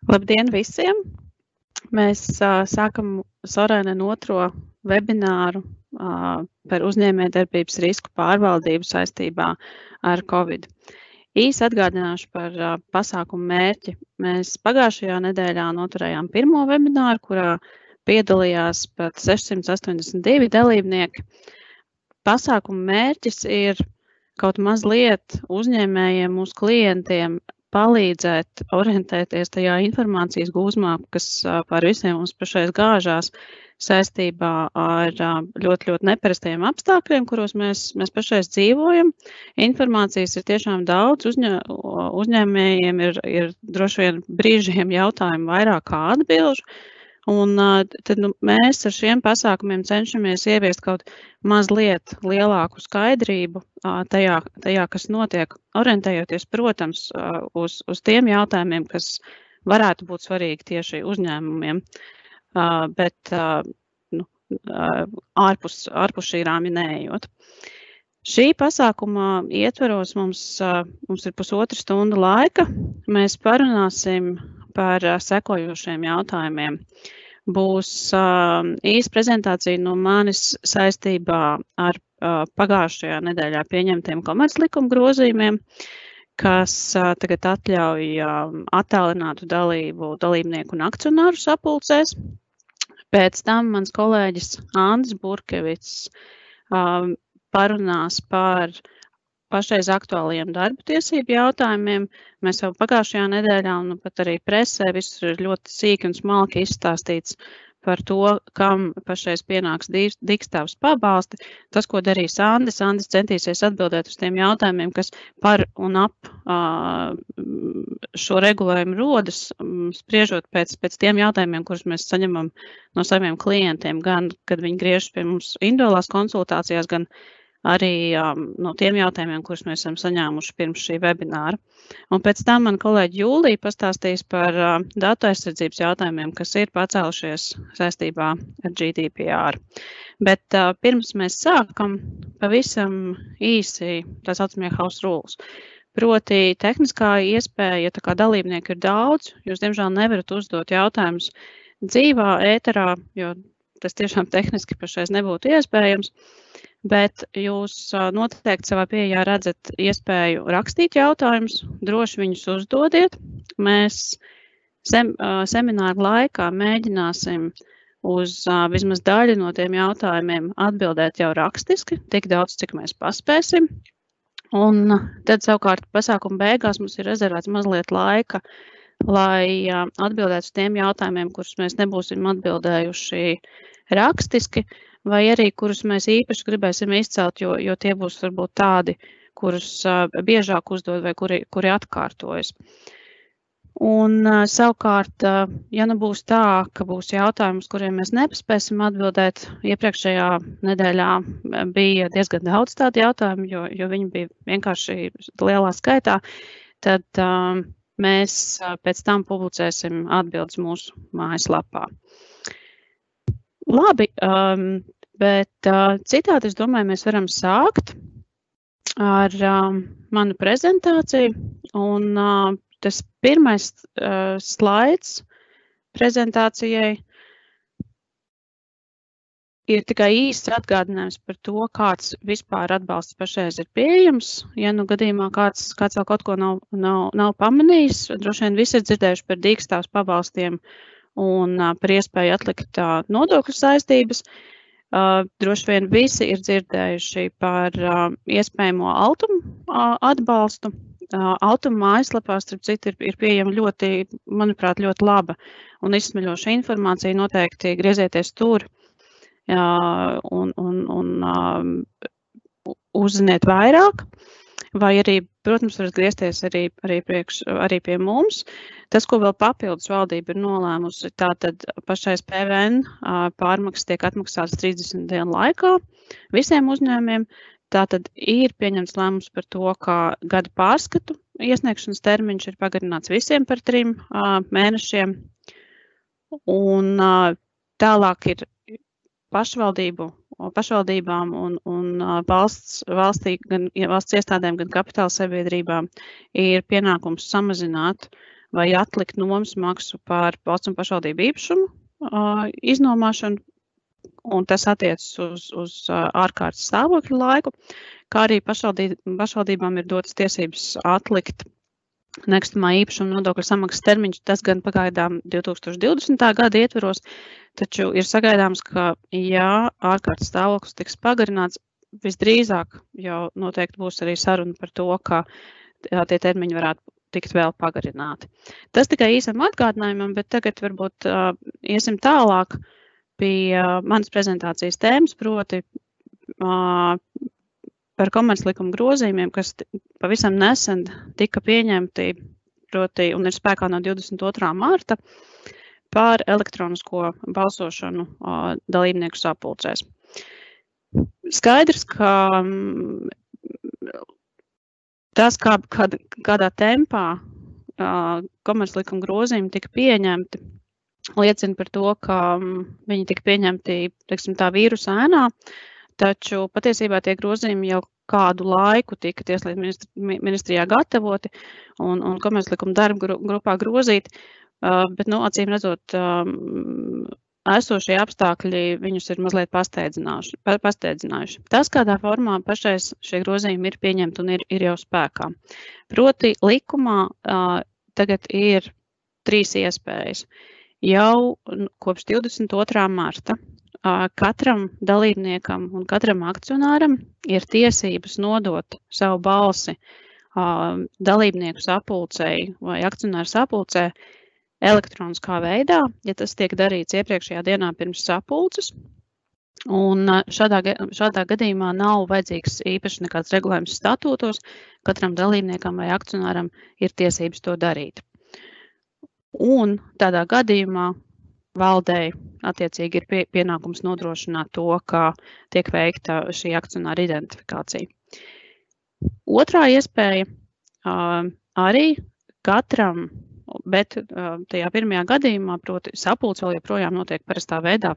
Labdien visiem! Mēs sākam Sorēnen otro webināru par uzņēmējdarbības risku pārvaldību saistībā ar Covid. Īsi atgādināšu par pasākumu mērķi. Mēs pagājušajā nedēļā noturējām pirmo webināru, kurā piedalījās pat 682 dalībnieki. Pasākumu mērķis ir kaut mazliet uzņēmējiem, mūsu klientiem palīdzēt orientēties tajā informācijas gūzmā, kas par visiem mums pašais gāžās saistībā ar ļoti neparastajiem apstākļiem, kuros mēs pašais dzīvojam. Informācijas ir tiešām daudz, uzņēmējiem ir droši vien brīžiem jautājumi vairāk kā atbilžu. Un tad mēs ar šiem pasākumiem cenšamies ieviest kaut mazliet lielāku skaidrību tajā, kas notiek, orientējoties, protams, uz tiem jautājumiem, kas varētu būt svarīgi tieši uzņēmumiem, bet ārpus šī rāmja neejot. Šī pasākuma ietveros mums ir pusotra stunda laika. Mēs parunāsim par sekojošiem jautājumiem. Būs īsa prezentācija no manis saistībā ar pagājušajā nedēļā pieņemtiem komerclikuma grozījumiem, kas tagad atļauj attālinātu dalību dalībnieku un akcionāru sapulcēs. Pēc tam mans kolēģis Andris Burkevics parunās par pašreiz aktuālajiem darba tiesību jautājumiem. Mēs jau pagājušajā nedēļā un pat arī presē visur ir ļoti sīki un smalki izstāstīts par to, kam pašreiz pienāks dīkstāvs pabalsti. Tas, ko darīs Andris centīsies atbildēt uz tiem jautājumiem, kas par un ap šo regulējumu rodas, spriežot pēc tiem jautājumiem, kurus mēs saņemam no saviem klientiem, gan, kad viņi griežas pie mums individuālās konsultācijās, gan arī no tiem jautājumiem, kurus mēs esam saņēmuši pirms šī webināra. Un pēc tam man kolēģi Jūlija pastāstīs par datu aizsardzības jautājumiem, kas ir pacēlušies saistībā ar GDPR. Bet pirms mēs sākam, pavisam īsi tā saucamie house rules. Proti tehniskā iespēja, ja tā kā dalībnieku ir daudz, jūs diemžēl nevarat uzdot jautājumus dzīvā ēterā, jo tas tiešām tehniski pašreiz nebūtu iespējams. Bet jūs noteikti savā pieejā redzat iespēju rakstīt jautājumus, droši viņus uzdodiet. Mēs semināru laikā mēģināsim uz vismaz daļu no tiem jautājumiem atbildēt jau rakstiski, tik daudz, cik mēs paspēsim. Un tad savukārt pasākuma beigās mums ir rezervēts mazliet laika, lai atbildētu uz tiem jautājumiem, kurus mēs nebūsim atbildējuši rakstiski, vai arī kurus mēs īpaši gribēsim izcelt, jo tie būs varbūt tādi, kurus biežāk uzdod vai kuri atkārtojas. Un savukārt, ja nu būs tā, ka būs jautājums, kuriem mēs nepaspēsim atbildēt, iepriekšējā nedēļā bija diezgan daudz tādu jautājumu, jo viņi bija vienkārši lielā skaitā, tad mēs pēc tam publicēsim atbildes mūsu mājaslapā. Labi, bet citādi, es domāju, mēs varam sākt ar manu prezentāciju. Un tas pirmais slaids prezentācijai ir tikai īsts atgādinājums par to, kāds vispār atbalsts pašreiz ir pieejams. Ja nu gadījumā kāds vēl kaut ko nav pamanījis, droši vien visi ir dzirdējuši par dīkstāvs pabalstiem un par iespēju atlikt nodokļu saistības. Droši vien visi ir dzirdējuši par iespējamo Altuma atbalstu. Altuma mājaslapā, starp citu, ir pieejama ļoti, manuprāt, ļoti laba un izsmeļoša informācija. Noteikti griezieties tur un uzziniet vairāk. Vai arī, protams, varat griezties arī pie mums. Tas, ko vēl papildus valdība ir nolēmusi, tātad pašais PVN pārmaksas tiek atmaksāts 30 dienu laikā visiem uzņēmumiem. Tātad ir pieņemts lēmums par to, ka gada pārskatu iesniegšanas termiņš ir pagarināts visiem par 3 mēnešiem. Un tālāk ir pašvaldībām un valsts iestādēm, gan kapitāla sabiedrībām ir pienākums samazināt vai atlikt nomas maksu par valsts un pašvaldību īpašumu iznomāšanu, un tas attiecas uz ārkārtas stāvokļa laiku, kā arī pašvaldībām ir dotas tiesības atlikt nekustamā īpašuma nodokļa samaksas termiņš, tas gan pagaidām 2020. gada ietveros, taču ir sagaidāms, ka, ja ārkārtas stāvoklis tiks pagarināts, visdrīzāk jau noteikti būs arī saruna par to, ka tie termiņi varētu tikt vēl pagarināti. Tas tikai īsam atgādinājumam, bet tagad varbūt iesim tālāk pie manas prezentācijas tēmas, proti par komerclikuma grozījumiem, kas pavisam nesen tika pieņemti, proti, un ir spēkā no 22. marta, par elektronisko balsošanu dalībnieku sapulcēs. Skaidrs, ka tas, kādā tempā komerclikuma grozījumi tika pieņemti, liecina par to, ka viņi tika pieņemti, teiksim, tā vīrusa ēnā, taču patiesībā tie grozījumi jau kādu laiku tika Tieslietu ministrijā gatavoti un komerclikuma darba grupā grozīti, bet, acīm redzot, esošie apstākļi viņus ir mazliet pasteidzinājuši. Tas, kādā formā pašais šie grozījumi ir pieņemti un ir jau spēkā. Proti likumā tagad ir 3 iespējas. Jau kopš 22. marta katram dalībniekam un katram akcionāram ir tiesības nodot savu balsi dalībnieku sapulcei vai akcionāru sapulcē elektroniskā veidā, ja tas tiek darīts iepriekšējā dienā pirms sapulces. Un šādā gadījumā nav vajadzīgs īpaši nekāds regulējums statūtos, katram dalībniekam vai akcionāram ir tiesības to darīt. Un tādā gadījumā valdei attiecīgi ir pienākums nodrošināt to, ka tiek veikta šī akcionāra identifikācija. Otrā iespēja arī katram, bet tajā pirmajā gadījumā, proti sapulce vēl joprojām notiek parastā veidā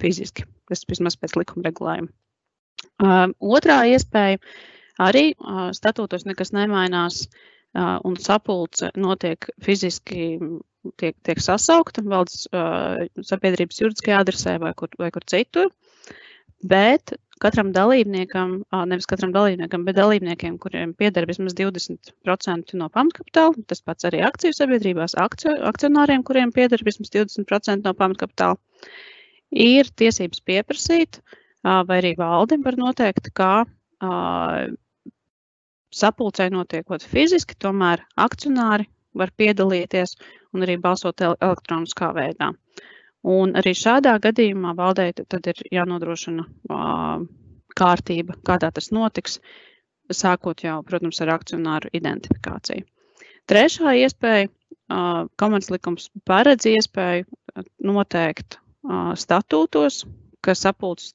fiziski, tas vismaz pēc likuma regulējuma. Otrā iespēja arī statūtos nekas nemainās un sapulce notiek fiziski, tiek sasaukta valdes sabiedrības juridiskajā adresē vai kur citur, bet katram dalībniekam, nevis katram dalībniekam, bet dalībniekiem, kuriem pieder vismaz 20% no pamatkapitāla, tas pats arī akciju sabiedrībās, akcionāriem, kuriem pieder vismaz 20% no pamatkapitāla, ir tiesības pieprasīt, vai arī valde var noteikt, kā sapulcei notiekot fiziski, tomēr akcionāri var piedalīties un arī balsot elektroniskā veidā. Un arī šādā gadījumā valdei tad ir jānodrošina kārtība, kādā tas notiks, sākot jau, protams, ar akcionāru identifikāciju. Trešā iespēja, komerclikums paredz iespēju noteikt statūtos, ka sapulces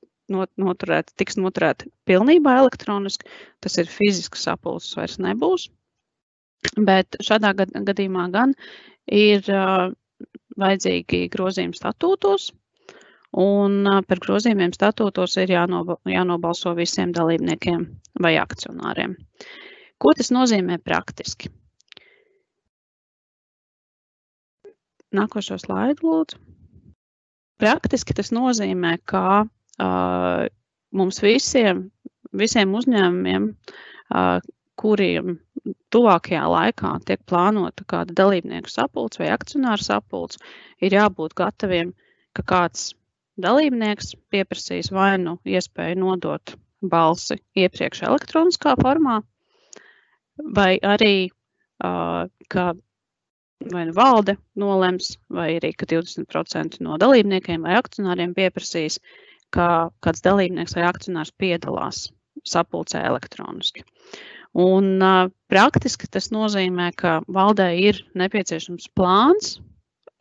tiks noturēta pilnībā elektroniski, tas ir fizisks sapulces vairs nebūs, bet šādā gadījumā gan ir vajadzīgi grozījumi statūtos, un par grozījumiem statūtos ir jānobalso visiem dalībniekiem vai akcionāriem. Ko tas nozīmē praktiski? Nākošo slaidu, lūdzu. Praktiski tas nozīmē, ka mums visiem uzņēmumiem, kuriem tuvākajā laikā tiek plānota kāda dalībnieku sapulce vai akcionāru sapulce, ir jābūt gataviem, ka kāds dalībnieks pieprasīs vai nu iespēju nodot balsi iepriekš elektroniskā formā, vai arī, ka vai nu valde nolems, vai arī, ka 20% no dalībniekiem vai akcionāriem pieprasīs, ka kāds dalībnieks vai akcionārs piedalās sapulcē elektroniski. Un praktiski tas nozīmē, ka valdei ir nepieciešams plāns,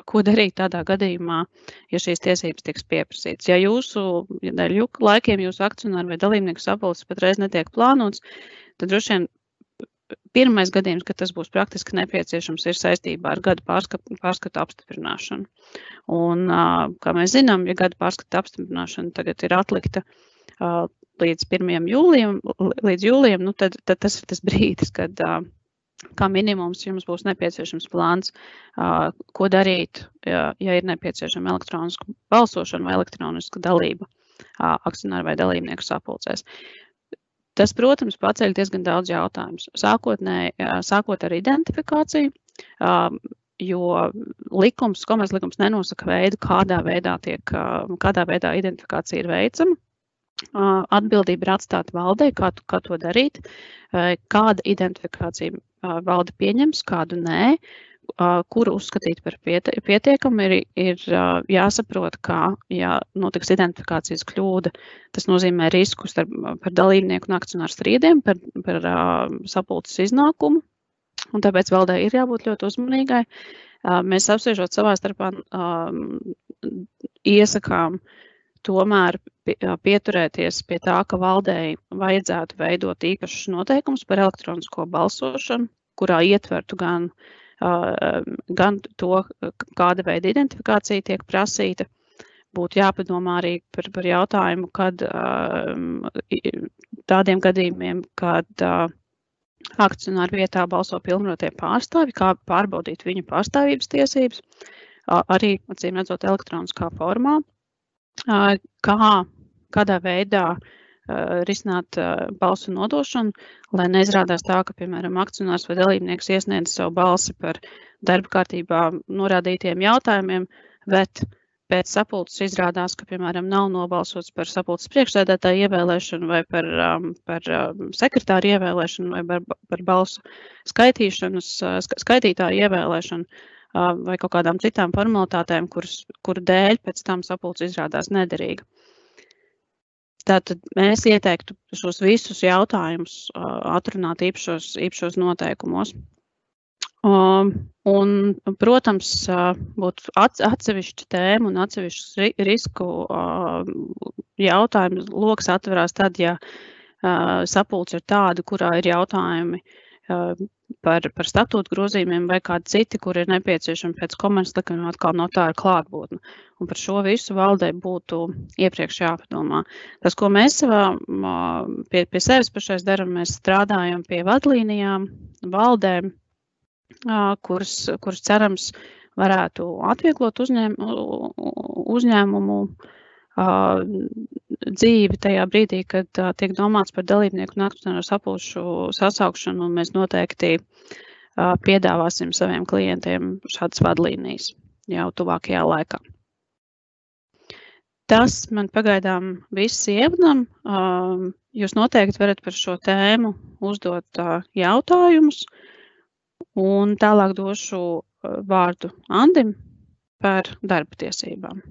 ko darīt tādā gadījumā, ja šīs tiesības tiks pieprasītas. Ja dēļ laikiem jūsu akcionāru vai dalībnieku sapulces patreiz netiek plānots, tad droši vien pirmais gadījums, kad tas būs praktiski nepieciešams, ir saistībā ar gada pārskatu apstiprināšanu. Un, kā mēs zinām, ja gada pārskatu apstiprināšana tagad ir atlikta līdz 1. jūlijam, tad tas ir tas brīdis, kad kā minimums jums būs nepieciešams plāns, ko darīt, ja ir nepieciešama elektroniska balsošana vai elektroniska dalība akcionāru vai dalībnieku sapulcēs. Tas, protams, paceļ diezgan daudz jautājumus. Sākot ar identifikāciju, jo komerclikums nenosaka veidu, kādā veidā identifikācija ir veicama. Atbildība ir atstāta valdei, kā to darīt, kāda identifikācija valde pieņems, kādu nē, kuru uzskatīt par pietiekamu, ir jāsaprot, ka, ja notiks identifikācijas kļūda, tas nozīmē riskus par dalībnieku un akcionāru strīdiem, par sapulces iznākumu, un tāpēc valdei ir jābūt ļoti uzmanīgai. Mēs apspriežot savā starpā iesakām tomēr pieturēties pie tā, ka valdei vajadzētu veidot īpašus noteikumus par elektronisko balsošanu, kurā ietvertu gan to, kāda veida identifikācija tiek prasīta. Būtu jāpadomā arī par jautājumu, kad tādiem gadījumiem, kad akcionāru vietā balso pilnvarotie pārstāvji, kā pārbaudīt viņu pārstāvības tiesības, arī, acīm redzot, elektroniskā formā, kādā veidā risināt balsu nodošanu, lai neizrādās tā, ka, piemēram, akcionārs vai dalībnieks iesniedz savu balsi par darba kārtībā norādītiem jautājumiem, bet pēc sapulces izrādās, ka, piemēram, nav nobalsots par sapulces priekšsēdētāju ievēlēšanu vai par sekretāru ievēlēšanu vai par balsu skaitītāju ievēlēšanu vai kaut kādām citām formalitātēm, kuru dēļ pēc tam sapulce izrādās nederīga. Tātad mēs ieteiktu šos visus jautājumus atrunāt īpašos noteikumos. Un, protams, būtu atsevišķa tēma un atsevišķu risku jautājumu loks atverās tad, ja sapulce ir tāda, kurā ir jautājumi par statūtu grozījumiem vai kādi citi, kur ir nepieciešami pēc komerclikuma atkal notāra klātbūtne. Un par šo visu valdei būtu iepriekš jāpadomā. Tas, ko mēs pie sevis pašais darām, mēs strādājam pie vadlīnijām, valdēm, kuras cerams varētu atvieglot uzņēmumu dzīvi tajā brīdī, kad tiek domāts par dalībnieku un akcionāru sapulču sasaukšanu, un mēs noteikti piedāvāsim saviem klientiem šādas vadlīnijas jau tuvākajā laikā. Tas man pagaidām viss ievadam. Jūs noteikti varat par šo tēmu uzdot jautājumus, un tālāk došu vārdu Andim par darba tiesībām.